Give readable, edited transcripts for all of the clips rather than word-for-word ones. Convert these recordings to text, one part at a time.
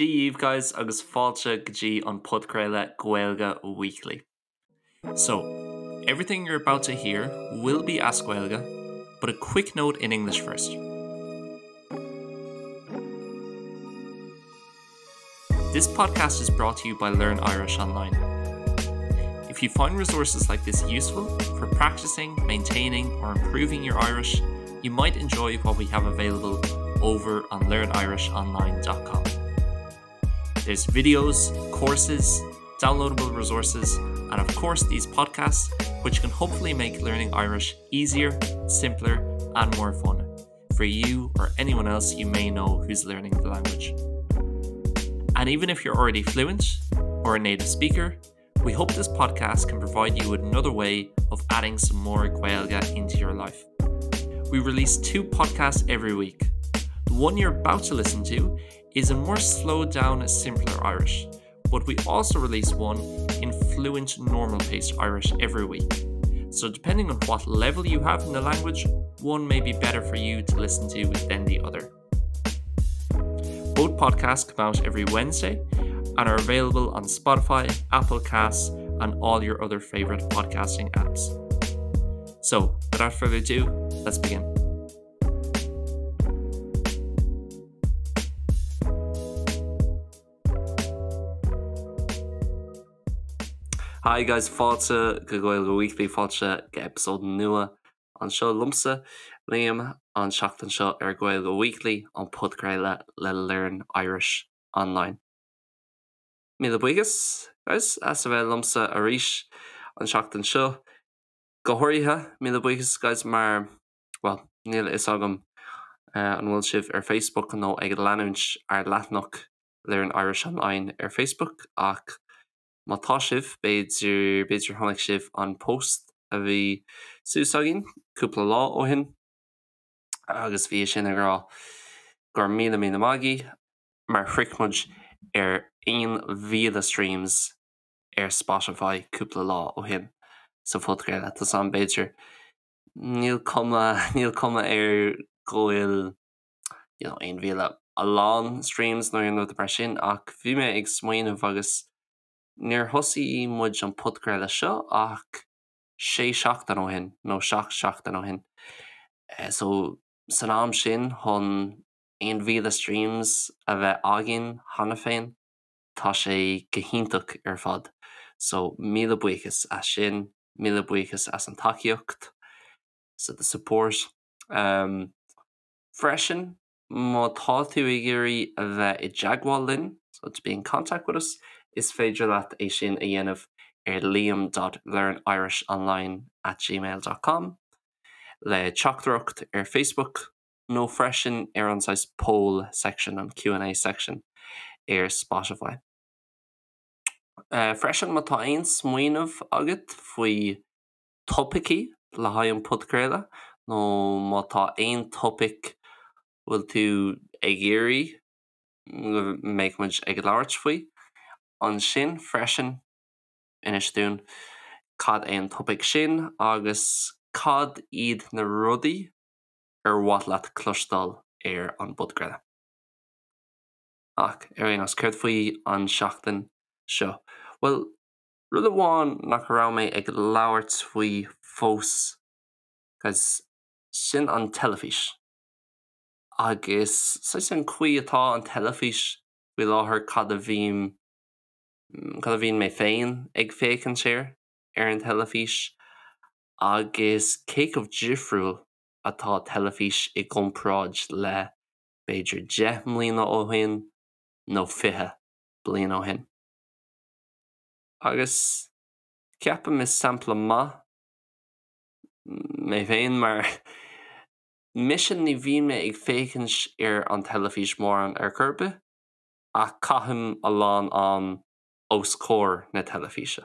Dia dhaoibh guys agus fáilte go dtí an podchraoladh Gaeilge Weekly. So, everything you're about to hear will be as Gaeilge, but a quick note in English first. This podcast is brought to you by Learn Irish Online. If you find resources like this useful for practicing, maintaining or improving your Irish, you might enjoy what we have available over on learnirishonline.com. There's videos, courses, downloadable resources, and of course these podcasts, which can hopefully make learning Irish easier, simpler, and more fun for you or anyone else you may know who's learning the language. And even if you're already fluent or a native speaker, we hope this podcast can provide you with another way of adding some more Gaeilge into your life. We release two podcasts every week. The one you're about to listen to is a more slowed down, simpler Irish, but we also release one in fluent normal paced Irish every week. So depending on what level you have in the language, one may be better for you to listen to than the other. Both podcasts come out every Wednesday and are available on Spotify, Apple Casts, and all your other favorite podcasting apps. So, without further ado, let's begin. Hi guys, fáilte go Gaeilge Weekly, fáilte go episode nua anseo liomsa, Liam, an seachtain seo ar Gaeilge Weekly, an podchraoladh le Learn Irish Online. Míle buíochas, guys, as a bheith liomsa arís an seachtain seo. Go háirithe, míle buíochas, guys, mar, bhuel, níl a fhios agam an bhfuil sibh ar Facebook nó ag leanúint ár leathanach Learn Irish Online ar Facebook ach má tá sibh, b'fhéidir, b'fhéidir chonaic sibh an post a bhí suas againn cúpla lá ó shin agus bhí sin ag rá go raibh míle míle maith agaibh mar shroich muid ar 1,000 streams ar Spotify cúpla lá ó shin sa phodchraoladh. Tá a fhios agam b'fhéidir níl cuma, níl cuma air go bhfuil you know, 1,000 a lán streams nó aon rud mar sin ach bhí mé ag smaoineamh agus níor thosaigh muid an podchraoladh seo ach sé seachtain ó shin nó seacht seachtain ó shin. So san am sin chun 1,000 streams a bheith againn cheana féin, tá sé go hiontach ar fad. So míle buíochas as sin, míle buíochas as an tacaíocht, so the support. Um, freisin, má tá tú ag iarraidh a bheith i dteagmháil linn, so to be in contact with us, is féidir leat é sin a dhéanamh ar liam.learnirishonline at gmail dot com, le teachtaireacht ar Facebook nó freisin ar an saghas poll section, an Q and A section ar Spotify. Freisin má tá aon smaoineamh agat faoi topaicí le haghaidh an podchraoladh nó má tá aon topaic bhfuil tú ag iarraidh go mbeidh muid ag labhairt faoi, ansin freisin inis dúinn cad é an topaic sin agus cad iad na rudaí ar mhaith leat cloisteáil ar an bpodchraoladh. Ach ar aon nós, céard faoi an seachtain seo? Bhuel, Rud amháin nach raibh mé ag labhairt faoi fós guys, sin an teilifís. Agus saghas an chaoi atá an teilifís faoi láthair, cad a bhím, cad a bhíonn mé féin ag féachaint air ar an teilifís agus cé chomh difriúil atá teilifís i gcomparáid le b'fhéidir 10 mbliana ó shin nó 20 bliain ó shin. Agus ceapaim is sampla maith mé féin mar mise ní bhíonn mé ag féachaint ar an teilifís mórán ar chor ar bith ach caithim a lán am os comhair na teilifíse.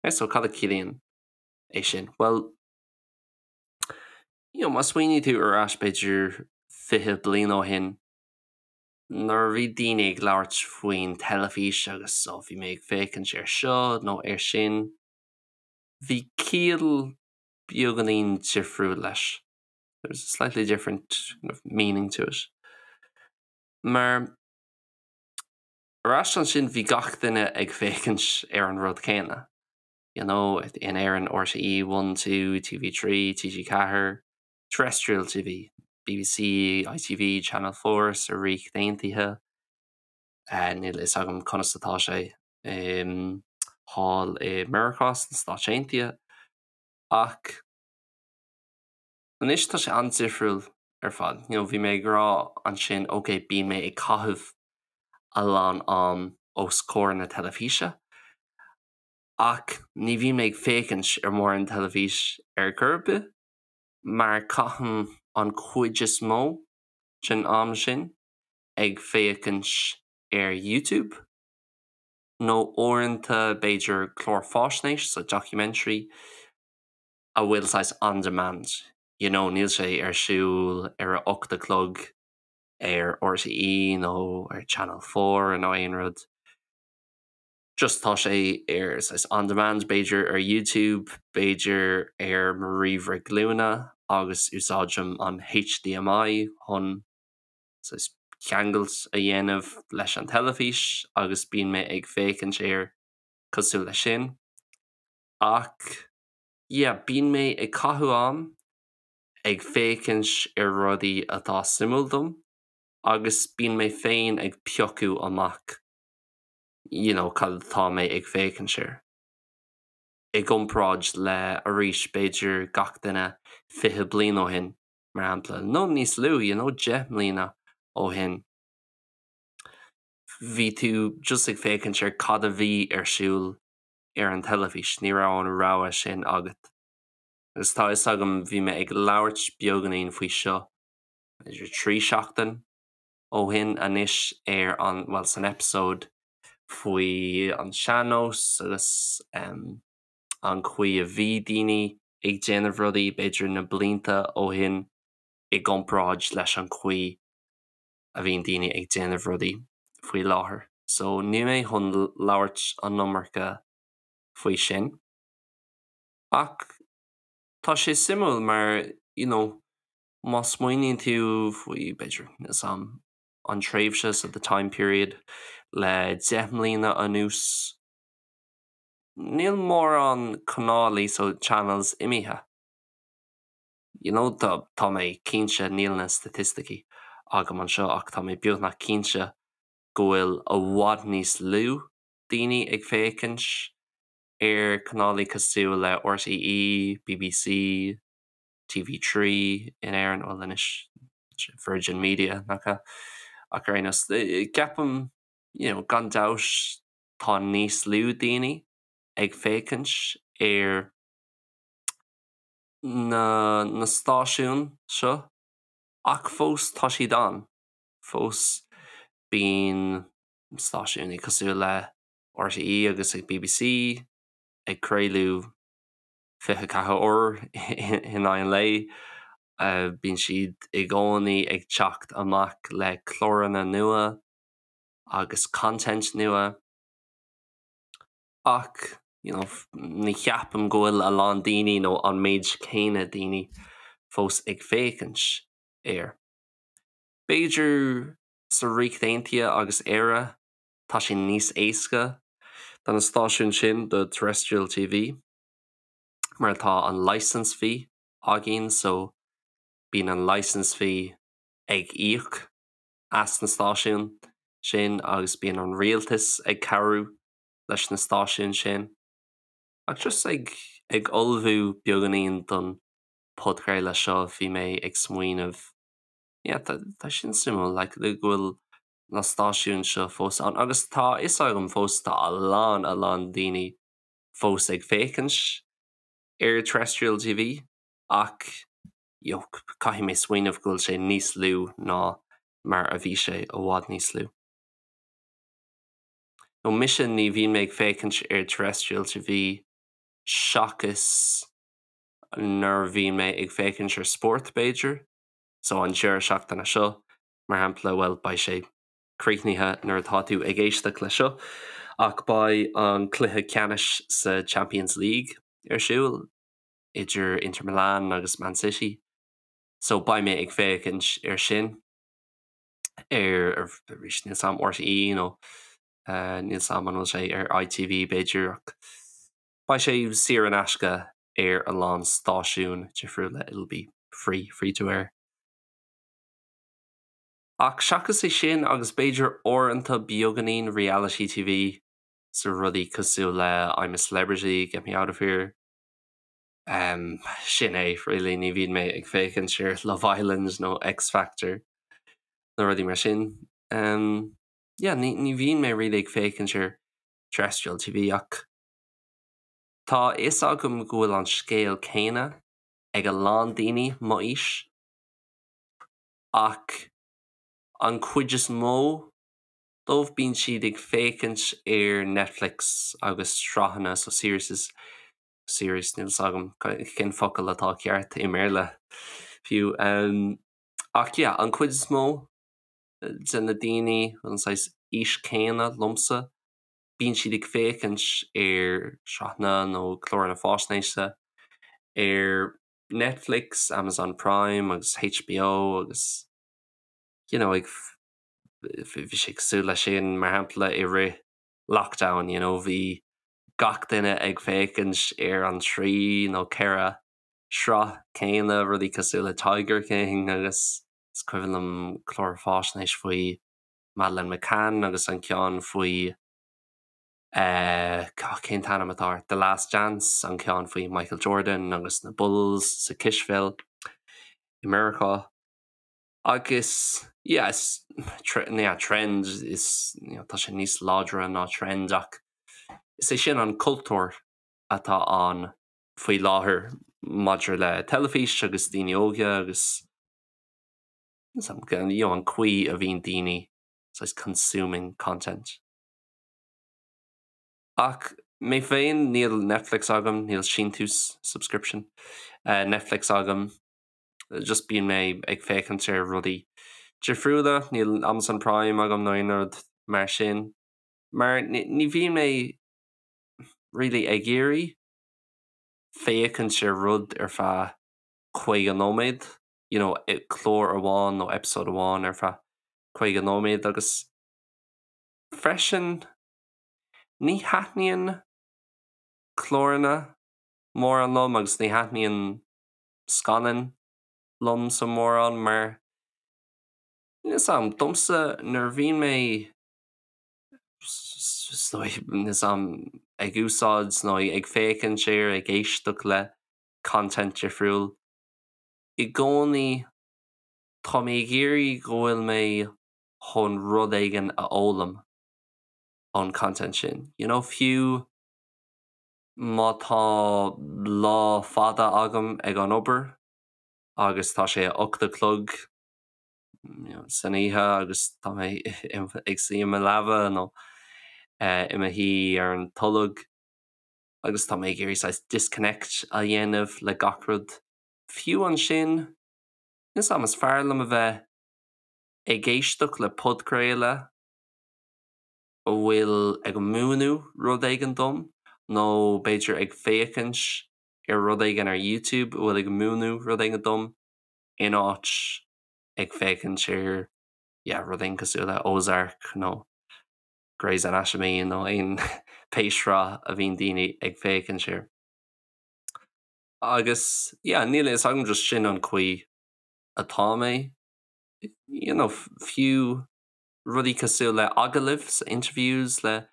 So cad a chiallaíonn é sin? Bhuel, you know, má smaoiníonn tú ar ais b'fhéidir 20 bliain ó shin, nuair a bhí daoine ag labhairt faoin teilifís agus ó bhí mé ag féachaint ar seo nó ar sin, bhí ciall beagáinín difriúil leis. There was a slightly different kind of meaning to it. Mar. Ar ais ansin bhí gach duine ag féachaint ar an rud céanna. You know, in Éirinn RTÉ 1, 2, TV3, TG4, Terrestrial TV, BBC, ITV, Channel 4 sa Ríocht Aontaithe. Níl a fhios agam conas atá sé thall i Meiriceá sna Stáit Aontaithe ach anois tá sé an-difriúil ar fad. You know, bhí mé ag rá ansin ok bíonn mé ag caitheamh a lán am os comhair na teilifíse ach ní bhíonn mé ag féachaint ar mórán teilifís ar chor ar bith mar caithim an chuid is mó den am sin ag féachaint ar YouTube nó uaireanta b'fhéidir clár fáisnéis, so documentary, a bhfuil saghas on demand, you know níl sé ar siúl ar a 8 a chlog ar RTÉ nó ar Channel 4 nó aon rud. Just tá sé ar saghas on demand b'fhéidir ar YouTube, b'fhéidir ar mo ríomhaire glúine agus úsáidim an HDMI chun saghas ceangailt a dhéanamh leis an teilifís agus bíonn mé ag féachaint air cosúil leis sin. Ach yeah, bíonn mé ag caitheamh am ag féachaint ar rudaí atá suimiúil dom agus bíonn mé féin ag piocadh amach you know cad atá mé ag féachaint air. I gcomparáid le arís b'fhéidir gach duine 20 bliain ó shin mar shampla, nó níos lú, you know 10 mbliana ó shin, bhí tú just ag féachaint ar cad a bhí ar siúl ar an teilifís, ní raibh an rogha sin agat. Agus tá fhios agam bhí mé ag labhairt beagáinín faoi seo b'fhéidir 3 seachtain ó shin anois ar an, bhuel san episode faoi an sean-nós agus an chaoi a bhí daoine ag déanamh rudaí b'fhéidir na blianta ó shin i gcomparáid leis an chaoi a bhíonn daoine ag déanamh rudaí faoi láthair. So níl mé chun labhairt an iomarca faoi sin. Ach tá sé suimiúil mar you know má smaoiníonn tú faoi b'fhéidir níl 'fhios a'm an tréimhse so the time period le 10 mbliana anuas níl mórán canálaí so channels imithe. You know tá tá mé cinnte níl na staitisticí agam anseo ach tá mé beagnach cinnte go bhfuil i bhfad níos lú daoine ag féachaint ar chanálaí cosúil le RTÉ, BBC, TV3 in Éirinn, bhuel anois Virgin Media nach ea? Ach ar aon nós, ceapaim you know gan dabht tá níos lú daoine ag féachaint ar na na stáisiúin seo ach fós tá siad ann, fós bíonn stáisiúin cosúil le RTÉ agus ag BBC ag craoladh 24 uair in aghaidh an lae. Bíonn siad i gcónaí ag teacht amach le cláranna nua agus content nua. Ach you know ní cheapaim go bhfuil a lán daoine nó an méid céanna daoine fós ag féachaint air. B'fhéidir sa Ríocht Aontaithe agus Éire tá sé níos éasca do na stáisiúin sin do terrestrial TV mar tá an licence fee againn so bíonn an licence fee ag íoc as na stáisiúin sin agus bíonn an rialtas ag cabhrú leis na stáisiúin sin. Ach just ag ag ullmhú beagáinín don podchraoladh seo bhí mé ag smaoineamh yeah tá tá sin suimiúil like go bhfuil na stáisiúin seo fós ann agus tá a fhios agam fós tá a lán a lán daoine fós ag féachaint ar terrestrial TV ach you know caithfidh mé smaoineamh go bhfuil sé níos lú ná mar a bhí sé i bhfad níos lú. Nó mise ní bhíonn mé ag féachaint ar terrestrial TV seachas nuair a bhíonn mé ag féachaint ar spórt b'fhéidir, so an deireadh seachtaine seo mar shampla, bhuel beidh sé críochnaithe nuair atá tú ag éisteacht le seo ach beidh an cluiche ceannais sa Champions League ar siúl idir Inter Milan agus Man City so beidh mé ag féachaint ar sin ar arís níl 's a'm RTÉ nó. Níl 's a'm an bhfuil sé ar ITV b'fhéidir ach beidh sé saor in aisce ar a lán stáisiún difriúla, it'll be free, free to air. Ach seachas é sin agus b'fhéidir uaireanta beagáinín reality TV so rudaí cosúil le I'm a Celebrity, Get Me Out of Here, um, sin é really, ní bhíonn mé ag féachaint ar Love Island nó X Factor nó rudaí mar sin. Um, yeah, ní, ní bhíonn mé really ag féachaint ar terrestrial TV ach tá a fhios agam go bhfuil an scéal céanna ag a lán daoine mo aois ach an chuid is mó dóibh bíonn siad ag féachaint ar Netflix agus sraitheanna so series series níl 's agam cén focal atá ceart i mBéarla fiú um, ach yeah, an chuid is mó de na daoine an saghas aois céanna liomsa bíonn siad ag féachaint ar sraitheanna nó cláranna faisnéise ar Netflix, Amazon Prime agus HBO agus you know, ag bhí sé cosúil leis sin mar shampla i rith lockdown, you know, bhí gach duine ag féachaint ar an trí nó ceithre sraith céanna, rudaí cosúil le Tiger King agus is cuimhin liom clár faisnéis faoi Madeleine McCann agus an ceann faoi eh, cén t-ainm atá air? The Last Dance, an ceann faoi Michael Jordan agus na Bulls sa cispheil i Meiriceá. Agus yeah, is yeah, trend is you know, tá sé níos láidre ná trend ach is é sin an cultúr atá ann faoi láthair maidir le teilifís agus daoine óga agus you know, an chaoi a bhíonn daoine saghas consuming content. Ach mé féin níl Netflix agam, níl síntiús subscription uh, Netflix agam, just bíonn mé ag féachaint ar rudaí difriúla, níl Amazon Prime agam nó aon rud mar sin. Mar ní bhíonn mé really ag iarraidh féachaint ar rud ar feadh 50 nóiméad, you know, clár amháin nó episode amháin ar feadh 50 nóiméad agus freisin ní thaitníonn cláranna mórán liom agus ní thaitníonn scannáin liomsa mórán mar níl 's a'm, domsa nuair a bhíonn mé níl 's a'm ag úsáid nó ag féachaint ar ag éisteacht le content difriúil i gcónaí tá mé ag iarraidh go bhfuil mé chun rud éigin a fhoghlaim ón content sin. You know, fiú má tá lá fada agam ag an obair agus tá sé a 8 a chlog san oíche agus tá mé ag suí i mo leaba nó i mo shuí ar an tolg agus tá mé ag iarraidh saghas disconnect a dhéanamh le gach rud. Fiú ansin, níl 's a'm, is fearr liom a bheith ag éisteacht le podchraoladh a bhfuil ag múineadh rud éigin dom nó b'fhéidir ag féachaint ar rud éigin ar YouTube a bhfuil ag múineadh rud éigin dom in áit ag féachaint ar yeah, rud éigin cosúil le Ozark nó Grey's Anatomy nó aon pé sraith a bhíonn daoine ag féachaint air. Agus yeah, níl a fhios agam just sin an chaoi atá mé. You know, fiú rudaí cosúil le agallaimh, so interviews le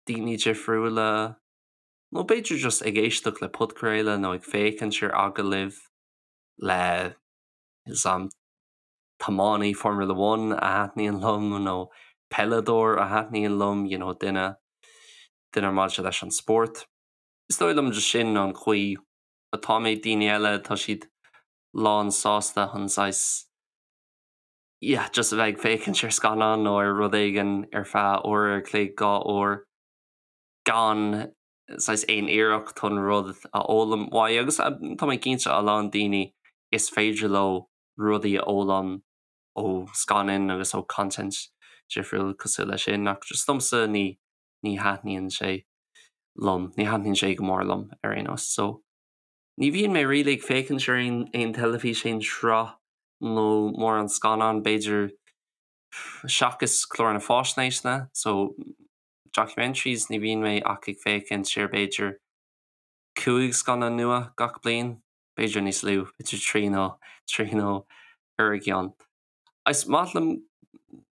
daoine difriúla, nó b'fhéidir just ag éisteacht le podchraoladh nó ag féachaint ar agallaimh le níl 's a'm tiománaí Formula One a thaitníonn liom nó peileadóir a thaitníonn liom, you know, duine duine maidir leis an spórt. Is dóigh liom just sin an chaoi atá mé, daoine eile tá siad lán sásta chun saghas yeah, just a bheith ag féachaint ar scannán nó ar rud éigin ar feadh uair ar chloig, 2 uair, gan saghas aon iarracht chun rud a fhoghlaim uaidh agus tá mé cinnte a lán daoine is féidir leo rudaí a fhoghlaim ó scannáin agus ó content difriúil cosúil leis sin ach just domsa ní ní thaitníonn sé liom, ní thaitníonn sé go mór liom ar aon nós so. Ní bhíonn mé really ag féachaint ar aon aon teilifís, aon sraith nó mórán scannán, b'fhéidir, seachas cláranna faisnéise, so documentaries ní bhíonn mé ach ag féachaint ar b'fhéidir 5 scannán nua gach bliain, b'fhéidir níos lú, b'fhéidir 3 nó 3 nó 4 gceann. Is maith liom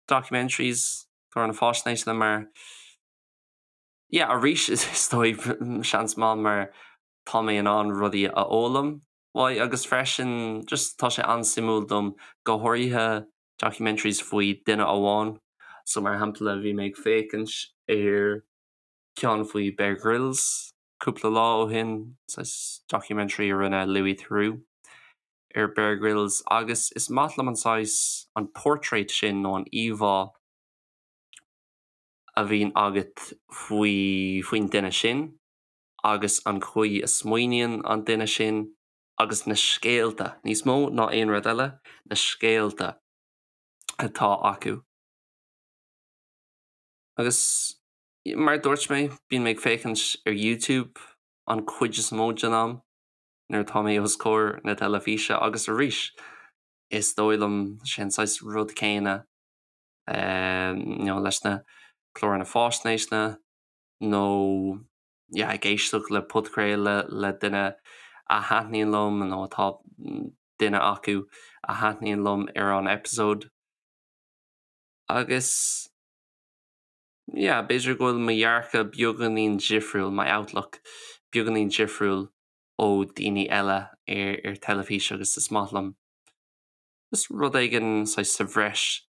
documentaries, cláranna faisnéise mar yeah arís is dóigh seans maith mar tá mé in ann rudaí a fhoghlaim uaidh agus freisin just tá sé an-suimiúil dom go háirithe documentaries faoi duine amháin. So mar shampla bhí mé ag féachaint ar ceann faoi Bear Grylls cúpla lá ó shin, saghas documentary a rinne Louis Theroux ar Bear Grylls agus is maith liom an saghas, an portrait sin nó an íomhá a bhíonn agat faoi faoin duine sin agus an chaoi a smaoiníonn an duine sin agus na scéalta, níos mó ná aon rud eile, na scéalta atá acu. Agus mar a dúirt mé, bíonn mé ag féachaint ar YouTube an chuid is mó den am nuair atá mé os comhair na teilifíse agus arís, is dóigh liom sé an saghas rud céanna you know leis na cláranna faisnéise nó yeah ag éisteacht le podchraoladh le duine a thaitníonn liom nó atá duine acu a thaitníonn liom ar an episode. Agus yeah b'fhéidir go bhfuil mo dhearcadh beagáinín difriúil, my outlook beagáinín difriúil ó daoine eile ar ar teilifís agus is maith liom just rud éigin saghas sa bhreis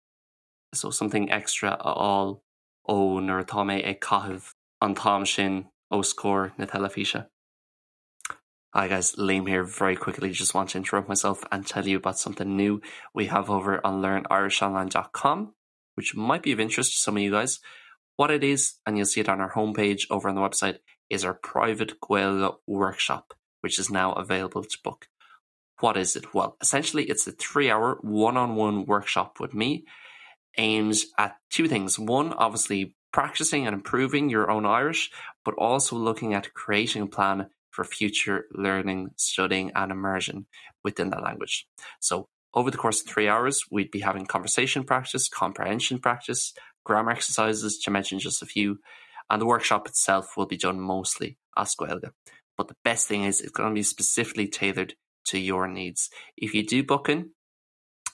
so something extra a fháil ó nuair atá mé ag caitheamh an t-am sin os comhair na teilifíse. Hi guys, Liam here very quickly just want to interrupt myself and tell you about something new we have over on learnirishonline.com which might be of interest to some of you guys. What it is, and you'll see it on our homepage over on the website, is our private Gaeilge workshop, which is now available to book. What is it? Well, essentially it's a 3-hour one-on-one workshop with me aimed at 2 things. 1, obviously practicing and improving your own Irish, but also looking at creating a plan for future learning, studying and immersion within the language. So over the course of 3 hours, we'd be having conversation practice, comprehension practice, grammar exercises, to mention just a few, and the workshop itself will be done mostly as Gaeilge. But the best thing is it's going to be specifically tailored to your needs. If you do book in,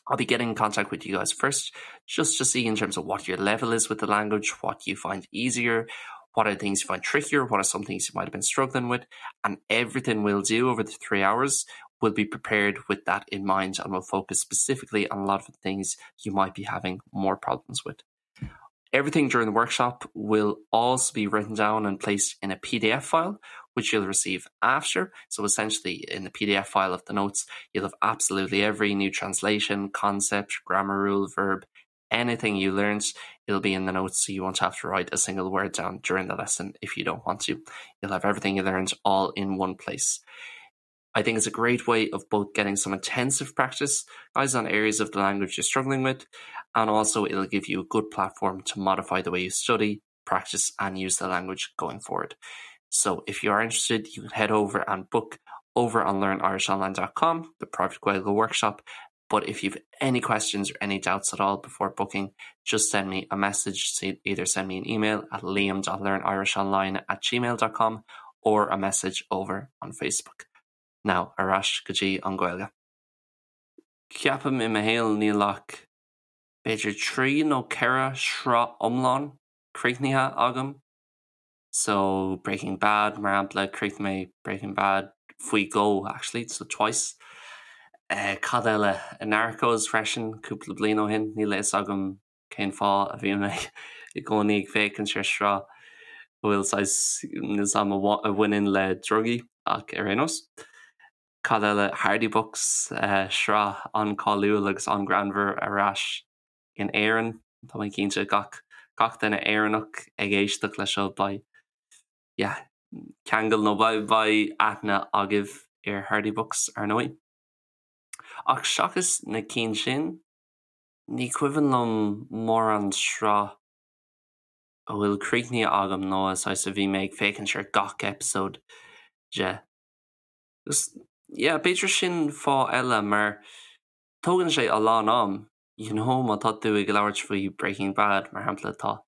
I'll be getting in contact with you guys first, just to see in terms of what your level is with the language, what you find easier, what are things you find trickier, what are some things you might have been struggling with, and everything we'll do over the 3 hours will be prepared with that in mind and will focus specifically on a lot of the things you might be having more problems with. Everything during the workshop will also be written down and placed in a PDF file, which you'll receive after. So essentially in the PDF file of the notes, you'll have absolutely every new translation, concept, grammar rule, verb, anything you learned, it'll be in the notes so you won't have to write a single word down during the lesson if you don't want to. You'll have everything you learned all in one place. I think it's a great way of both getting some intensive practice guys on areas of the language you're struggling with, and also it'll give you a good platform to modify the way you study, practice and use the language going forward. So if you are interested, you can head over and book over on learnirishonline.com, the private Gaeilge workshop. But if you've any questions or any doubts at all before booking, just send me a message. Either send me an email at liam.learnirishonline at gmail.com or a message over on Facebook. Now, ar ais go dtí an Ghaeilge. Ceapaim i mo shaol níl ach b'fhéidir 3 nó 4 shraith iomlán críochnaithe agam. So Breaking Bad mar shampla, chríochnaigh mé Breaking Bad faoi dhó actually, so twice. Cad eile? Narcos freisin cúpla bliain ó shin, níl a fhios agam cén fáth a bhíonn mé i gcónaí ag féachaint ar sraith a bhfuil saghas, níl 's a'm, a bhaineann le drugaí ach ar aon nós. Cad eile? Hardy Bucks, sraith an-cáiliúil agus an-ghreannmhar ar ais in Éirinn. Tá mé cinnte gach gach duine Éireannach ag éisteacht leis seo beidh yeah ceangal nó beidh beidh aithne agaibh ar Hardy Bucks ar ndóigh. Ach seachas na cinn sin, ní cuimhin liom mórán sraith a bhfuil críochnaithe agam nó a saghas a bhí mé ag féachaint ar gach episode de. Agus yeah b'fhéidir sin fáth eile mar tógann sé a lán am, you know má tá tú ag labhairt faoi Breaking Bad mar shampla tá.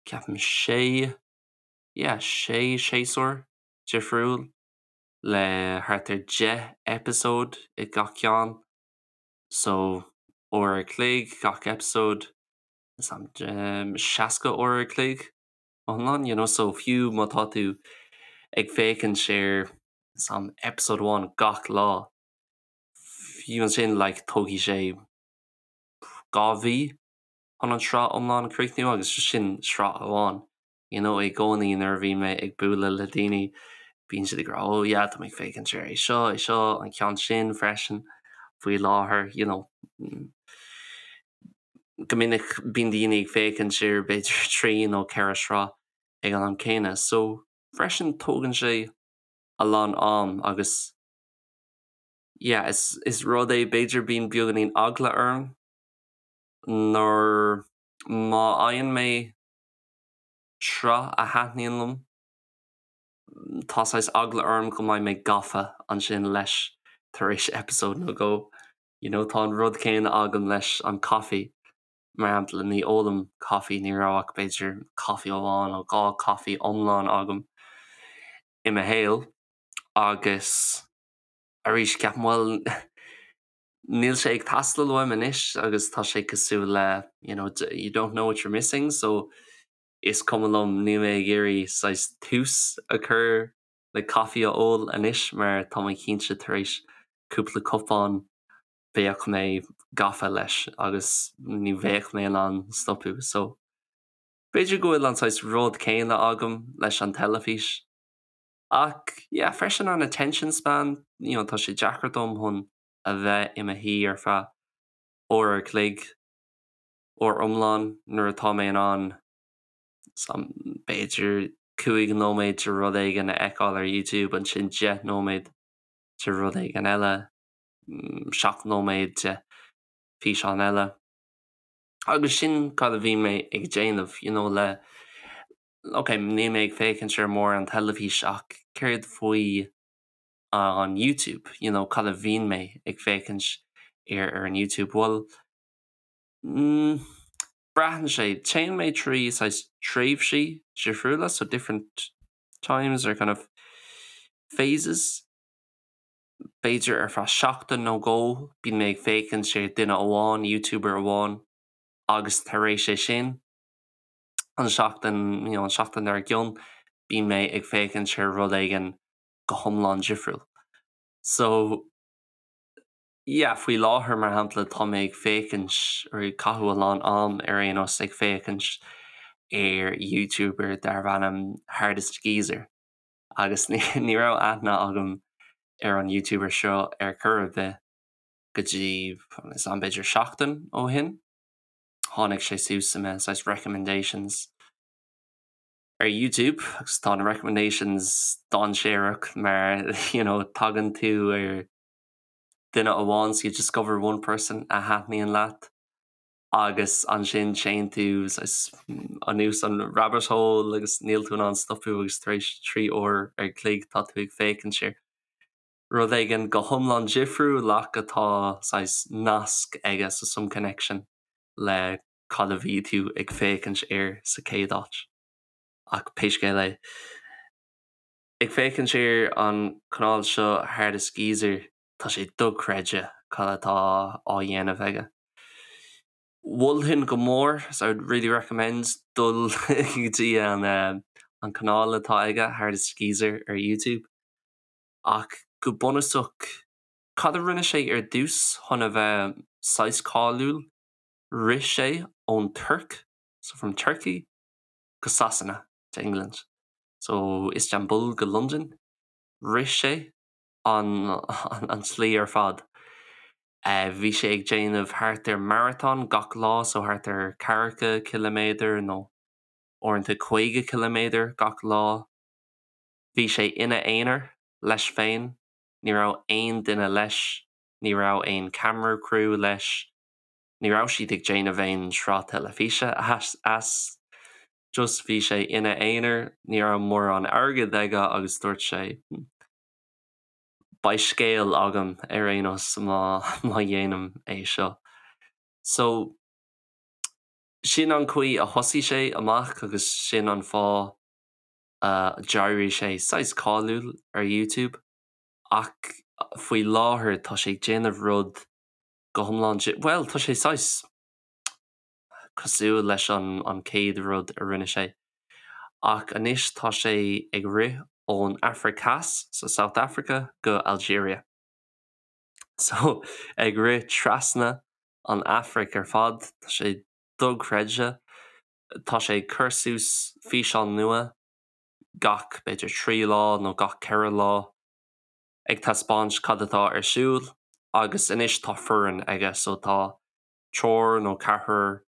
Ceapaim sé, yeah, sé séasúr difriúil le thart ar 10 eipeasóid i gach ceann. So uair a chloig gach eipeasóid, 60 uair a chloig iomlán, you know, so fiú má tá tú ag féachaint ar some episode amháin gach lá, fiú ansin like tógfaidh sé 2 mhí chun an sraith iomlán a chríochnú agus sin sraith amháin. You know, i gcónaí nuair a bhíonn mé ag bualadh le daoine bíonn siad ag rá oh yeah tá mé ag féachaint ar é seo, é seo, an ceann sin freisin faoi láthair, you know. Go minic bíonn daoine ag féachaint ar b'fhéidir 3 nó 4 sraith ag an am céanna so freisin tógann sé a lán am agus yeah is is rud é b'fhéidir bíonn beagáinín eagla orm nuair má fhaigheann mé sraith a thaitníonn liom tá saghas eagla orm go mbeidh mé gafa ansin leis tar éis eipeasóid nó dhó. You know tá an rud céanna agam leis an caife mar shampla ní ólaim caife ní raibh ach b'fhéidir caife amháin nó dhá caife iomlán agam i mo shaol agus arís ceapaim bhuel níl sé ag teastáil uaim anois agus tá sé cosúil le you know you don't know what you're missing so is cuma liom níl mé ag iarraidh saghas tús a chur le caife a ól anois mar tá mé cinnte tar éis cúpla cupán bheadh mé gafa leis agus ní bheadh mé in ann stopadh so b'fhéidir go bhfuil an saghas rud céanna agam leis an teilifís ach yeah freisin an attention span you know tá sé deacair dom chun a bheith i mo shuí ar feadh uair a chloig uair iomlán nuair atá mé in ann b'fhéidir 5 nóiméad de rud éigin a fheiceáil ar YouTube, ansin 10 nóiméad de rud éigin eile, 7 nóiméad de físeán eile. Agus sin cad a bhíonn mé ag déanamh, you know, le, ok, níl mé ag féachaint ar mórán teilifís ach céard faoi an YouTube, you know, cad a bhíonn mé ag féachaint ar ar an YouTube? Bhuel, mm, braitheann sé, téann mé trí saghas tréimhsí difriúla, so different times or kind of phases. B'fhéidir ar feadh seachtain nó dhó bíonn mé ag féachaint ar duine amháin, YouTuber amháin, agus tar éis é sin, an seachtain, you know, an seachtain dár gcionn, bíonn mé ag féachaint ar rud éigin go hiomlán difriúil. So, yeah, faoi láthair, mar shampla, tá mé ag féachaint, or ag caitheamh a lán am ar aon nós ag féachaint ar YouTuber darbh ainm Hardest Geezer agus ní ní raibh aithne agam ar an YouTuber seo ar chor ar bith go dtí is am b'fhéidir seachtain ó shin. Tháinig sé suas i mo saghas recommendations ar YouTube agus tá na recommendations dainséarach mar you know tagann tú ar duine amháin so you discover one person a thaitníonn leat agus ansin téann tú anuas an rabbit hole agus níl tú in ann stopadh agus tar éis 3 uair ar chloig tá tú ag féachaint ar rud éigin go hiomlán difriúil ach atá saghas nasc aige so some connection le cad a bhí tú ag féachaint air sa chéad áit. Ach pé scéal é, ag féachaint ar an chanáil seo Hardest Geezer, tá sé dochreidte cad atá á dhéanamh aige. Mholfainn go mór, so I would really recommend dul go dtí an an canáil atá aige, Hardest Geezer ar YouTube. Ach go bunúsach, cad a rinne sé ar dtús chun a bheith saghas cáiliúil? Rith sé ón Tuirc, so from Turkey, go Sasana, to England. So Istanbul go Londain. Rith sé an an tslí ar fad. Bhí sé ag déanamh thart ar marathon gach lá, so thart ar ceathracha ciliméadar nó uaireanta 50 ciliméadar gach lá. Bhí sé ina aonar, leis féin, ní raibh aon duine leis, ní raibh aon camera crew leis, Ní raibh siad ag déanamh aon sraith teilifíse as, just bhí sé ina aonar, ní raibh mórán airgid aige agus dúirt sé beidh scéal agam ar aon nós má má dhéanaim é seo. So, Sin an chaoi a thosaigh sé amach agus sin an fáth a d'éirigh sé saghas cáiliúil ar YouTube ach faoi láthair tá sé ag déanamh rud go hiomlán, bhuel tá sé saghas cosúil leis an an chéad rud a rinne sé ach anois tá sé ag rith ón Afraic Theas, so South Africa, go Algeria. So ag rith trasna an Afraic ar fad, tá sé dochreidte. Tá sé ag cur suas físeán nua gach b'fhéidir 3 lá nó gach 4 lá ag taispeáint cad atá ar siúl agus anois tá foireann aige so tá triúr nó ceathrar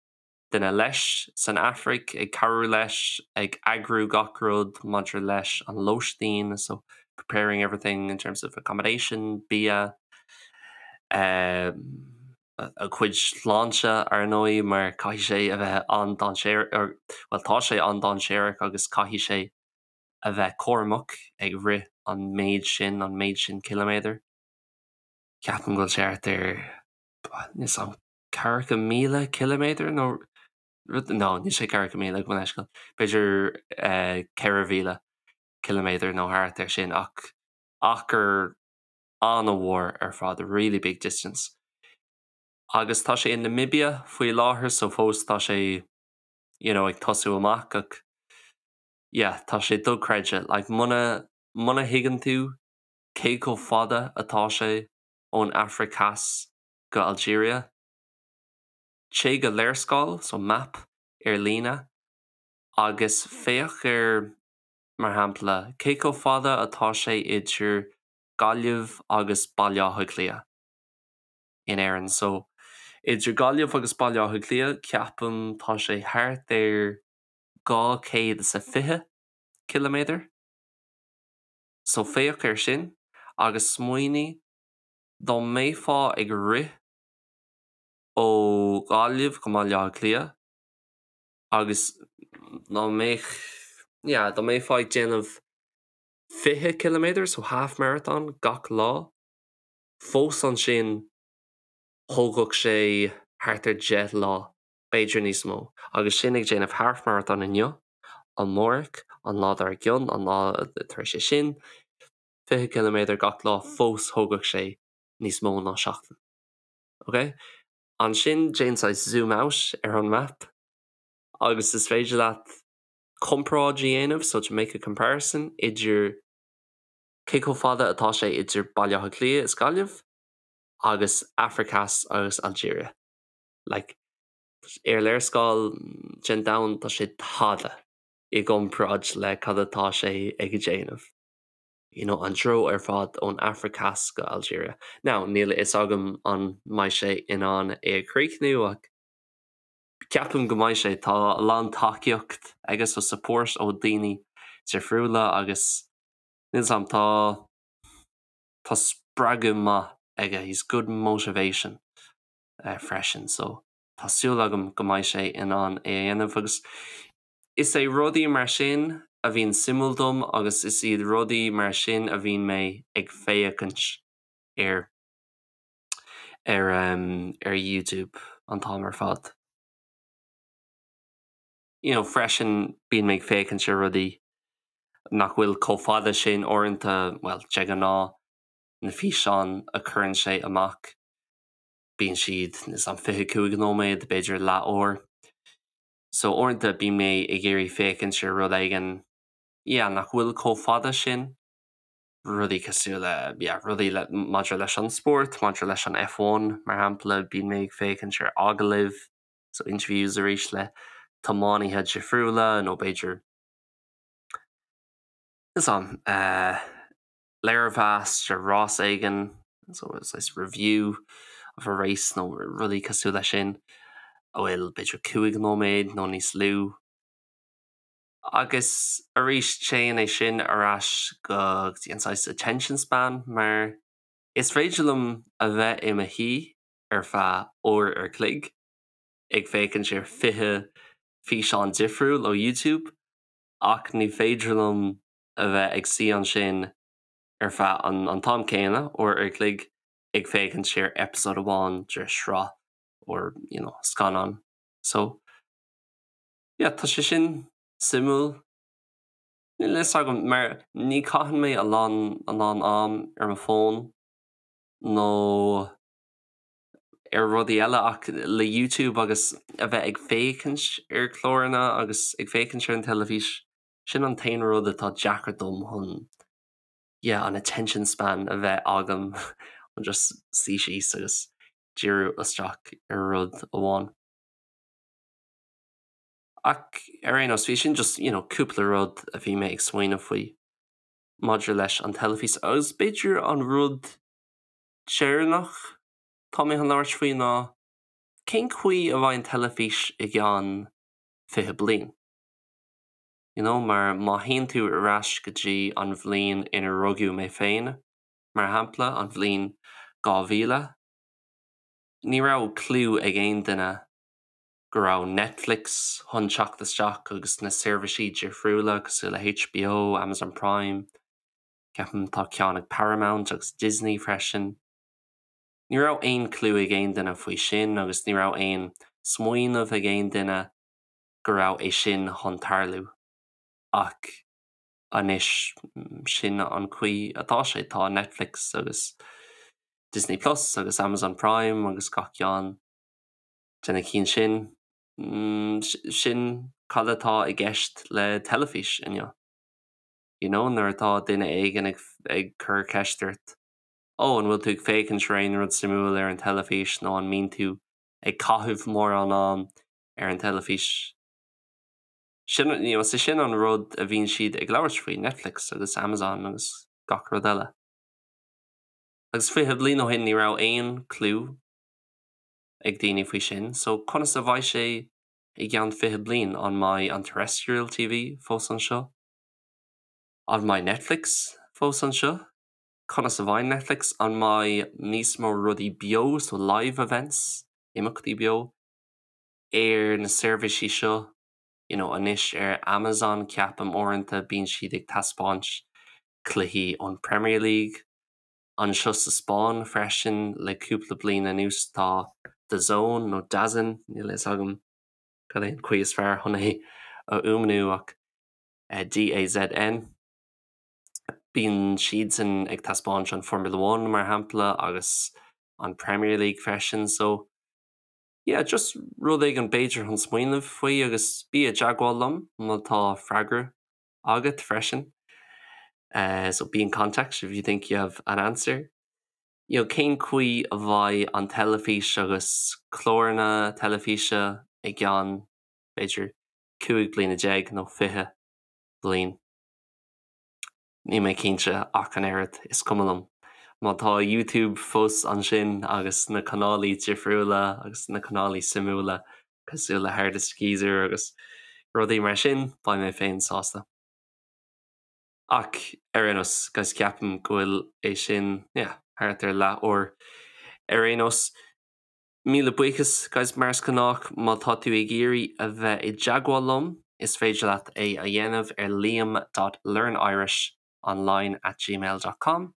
duine leis san Afraic ag cabhrú leis ag eagrú gach rud maidir leis an lóistín so preparing everything in terms of accommodation, bia, a chuid sláinte ar ndóigh mar caithfidh sé a bheith an-dainséarach, bhuel tá sé an-dainséarach agus caithfidh sé a bheith cúramach ag rith an méid sin, an méid sin ciliméadar. Ceapaim go bhfuil sé thart ar, níl 's a'm, 40,000 ciliméadar nó rud, no níl sé 40,000 gabh mo leithscéal, b'fhéidir 4,000 ciliméadar nó thart ar sin ach achar an-mhór ar fad, a really big distance. Agus tá sé i Namibia faoi láthair so fós tá sé you know ag tosú amach ach yeah tá sé dochreidte like muna muna thuigeann tú cé chomh fada atá sé ón Afraic Theas go Algeria, téigh go léarscáil so map ar líne agus féach ar mar shampla cé chomh fada atá sé idir Gaillimh agus Baile Átha Cliath in Éirinn. So idir Gaillimh agus Baile Átha Cliath ceapaim tá sé thart ar 220 ciliméadar. So féach air sin agus smaoinigh dá mbeifeá ag rith ó Ghaillimh go mBaile Átha Cliath agus dá mbeadh yeah dá mbeifeá ag déanamh 20 ciliméadar, so half marathon, gach lá. Fós ansin thógfadh sé thart ar 10 lá, b'fhéidir níos mó. Agus sin ag déanamh half marathon inniu, amárach, an lá dár gcionn, an lá tar éis é sin, 20 ciliméadar gach lá, fós thógfadh sé níos mó ná seachtain. Ok? Ansin déan saghas zoom out ar an map agus is féidir leat comparáid a dhéanamh, so to make a comparison, idir cé chomh fada atá sé idir Baile Átha Cliath is Gaillimh agus Afraic Theas agus Algeria. Like, ar léarscáil den domhan tá sé tada i gcomparáid le cad atá sé ag déanamh. You know, an treo ar fad ón Afraic Theas go Algeria. Now, níl a fhios agam an mbeidh sé in ann é a chríochnú ach Ceapaim go mbeidh sé. Tá a lán tacaíocht aige so support ó daoine difriúla agus níl 's a'm tá tá spreagadh maith aige, he's good motivation freisin so tá súil agam go mbeidh sé in ann é a dhéanamh agus is é rudaí mar sin a bhíonn suimiúil dom agus is iad rudaí mar sin a bhíonn mé ag féachaint air. ar ar YouTube an t-am ar fad. You know, freisin bíonn mé ag féachaint ar rudaí nach bhfuil chomh fada sin uaireanta, bhuel, de ghnáth, na físeáin a chuireann sé amach, bíonn siad níl 's a'm 25 nóiméad, b'fhéidir leathuair. So uaireanta bíonn mé ag iarraidh féachaint ar rud éigin, yeah, nach bhfuil chomh fada sin. rudaí cosúil le, yeah, rudaí le, maidir leis an spórt, maidir leis an F1 mar shampla, bíonn mé ag féachaint ar agallaimh, so interviews arís le tiománaithe difriúla nó b'fhéidir, níl 's a'm, eh, léirmheas ar rás éigin, so it's review of a race nó rudaí cosúil leis sin, a bhfuil b'fhéidir 5 nóiméad nó níos lú. Agus arís téann é sin ar ais go dtí an saghas attention span mar is féidir liom a bheith i mo shuí ar feadh uair ar chloig ag féachaint ar 20 físeán difriúil ó YouTube ach ní féidir liom a bheith ag suí ansin ar feadh an an t-am céanna, uair ar chloig, ag féachaint ar episode amháin de shraith or you know scannán. So. Yeah, tá sé sin suimiúil. Níl a fhios agam mar ní caitheann mé a lán a lán am ar mo fón nó ar rudaí eile ach le YouTube agus a bheith ag féachaint ar chláranna agus ag féachaint ar an teilifís, sin an t-aon rud atá deacair dom chun yeah, an attention span a bheith agam chun just suí síos agus díriú isteach ar rud amháin. Ach ar aon nós, bhí sin just, you know, cúpla rud a bhí mé ag smaoineamh faoi maidir leis an teilifís agus b'fhéidir an rud deireanach tá mé chun labhairt faoi ná cén chaoi a bheidh an teilifís i gceann 20 bliain? You know, mar má théann tú ar ais go dtí an bhliain ina rugadh mé féin, mar shampla, an bhliain 2000, ní raibh clue ag aon duine go raibh Netflix chun teacht isteach agus na seirbhísí difriúla cosúil le HBO, Amazon Prime, ceapaim tá ceann ag Paramount agus Disney freisin. Ní raibh aon clue ag aon duine faoi sin agus ní raibh aon smaoineamh ag aon duine go raibh é sin chun tarlú. Ach anois sin an chaoi atá sé, tá Netflix agus Disney Plus agus Amazon Prime agus gach ceann de na cinn sin. Sin cad atá i gceist le teilifís inniu. You know, nuair atá duine éigin ag ag cur ceist ort, Ó, an bhfuil tú ag féachaint ar aon rud suimiúil ar an teilifís nó an mbíonn tú ag caitheamh mórán am ar an teilifís? Sin, you know, sé sin an rud a bhíonn siad ag labhairt faoi, Netflix agus Amazon agus gach rud eile. Agus 20 bliain ó shin ní raibh aon clue ag daoine faoi sin, so conas a bheidh sé i gceann 20 bliain? An mbeidh an terrestrial TV fós anseo? An mbeidh Netflix fós anseo? Conas a bheidh Netflix? An mbeidh níos mó rudaí beo, so live events, imeachtaí beo, ar na seirbhísí seo? You know, anois ar Amazon ceapaim uaireanta bíonn siad ag taispeáint cluichí ón Premier League. Anseo sa Spáinn freisin le cúpla bliain anuas tá DAZN nó DAZN, níl a fhios agam cad é an chaoi is fearr chun é a fhuaimniú ach DAZN. Bíonn siadsan ag taispeáint an Formula One mar shampla agus an Premier League freisin so yeah, just rud éigin b'fhéidir chun smaoineamh faoi agus bí i dteagmháil liom má tá freagra agat freisin. Uh, so be in contact if you think you have an answer. You know, cén chaoi a bheidh an teilifís agus cláranna teilifíse i gceann b'fhéidir 15 bliana nó 20 bliain. Níl mé cinnte ach an oiread, is cuma liom. Má tá YouTube fós ansin agus na canálaí difriúla agus na canálaí suimiúla cosúil le Hardest Geezer agus rudaí mar sin, beidh mé féin sásta. Ach ar aon nós, guys, ceapaim go bhfuil é sin, yeah, thart ar leath uair. Ar aon nós, Míle buíochas, guys, mar is gnách, má tá tú ag iarraidh a bheith i dteagmháil liom, is féidir leat é a dhéanamh ar liam dot learnirishonline at gmail dot com.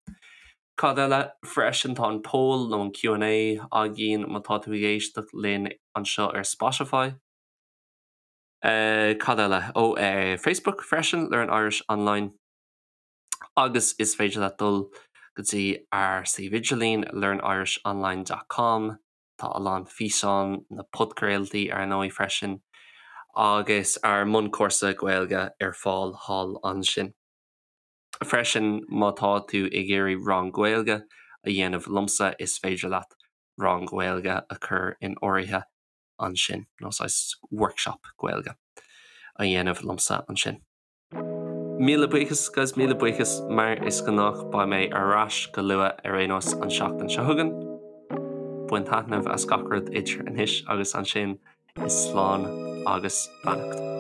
Cad eile? Freisin tá an poll nó an Q and A againn má tá tú ag éisteacht linn anseo ar Spotify. Cad eile? Ó, Facebook freisin, Learn Irish Online. Agus is féidir leat dul go dtí ár suíomh idirlín learnirishonline dot com, tá a lán físeán, na podchraoltaí ar ndóigh freisin, agus ár mbunchúrsa Gaeilge ar fáil thall ansin. Freisin má tá tú ag iarraidh rang Gaeilge a dhéanamh liomsa is féidir leat rang Gaeilge a chur in áirithe ansin, nó saghas workshop Gaeilge a dhéanamh liomsa ansin. Míle buíochas, guys, míle buíochas. Mar is gnách, beidh mé ar ais go luath ar aon nós an seachtain seo chugainn. Bain taitneamh as gach rud idir anois agus ansin, is slán agus beannacht.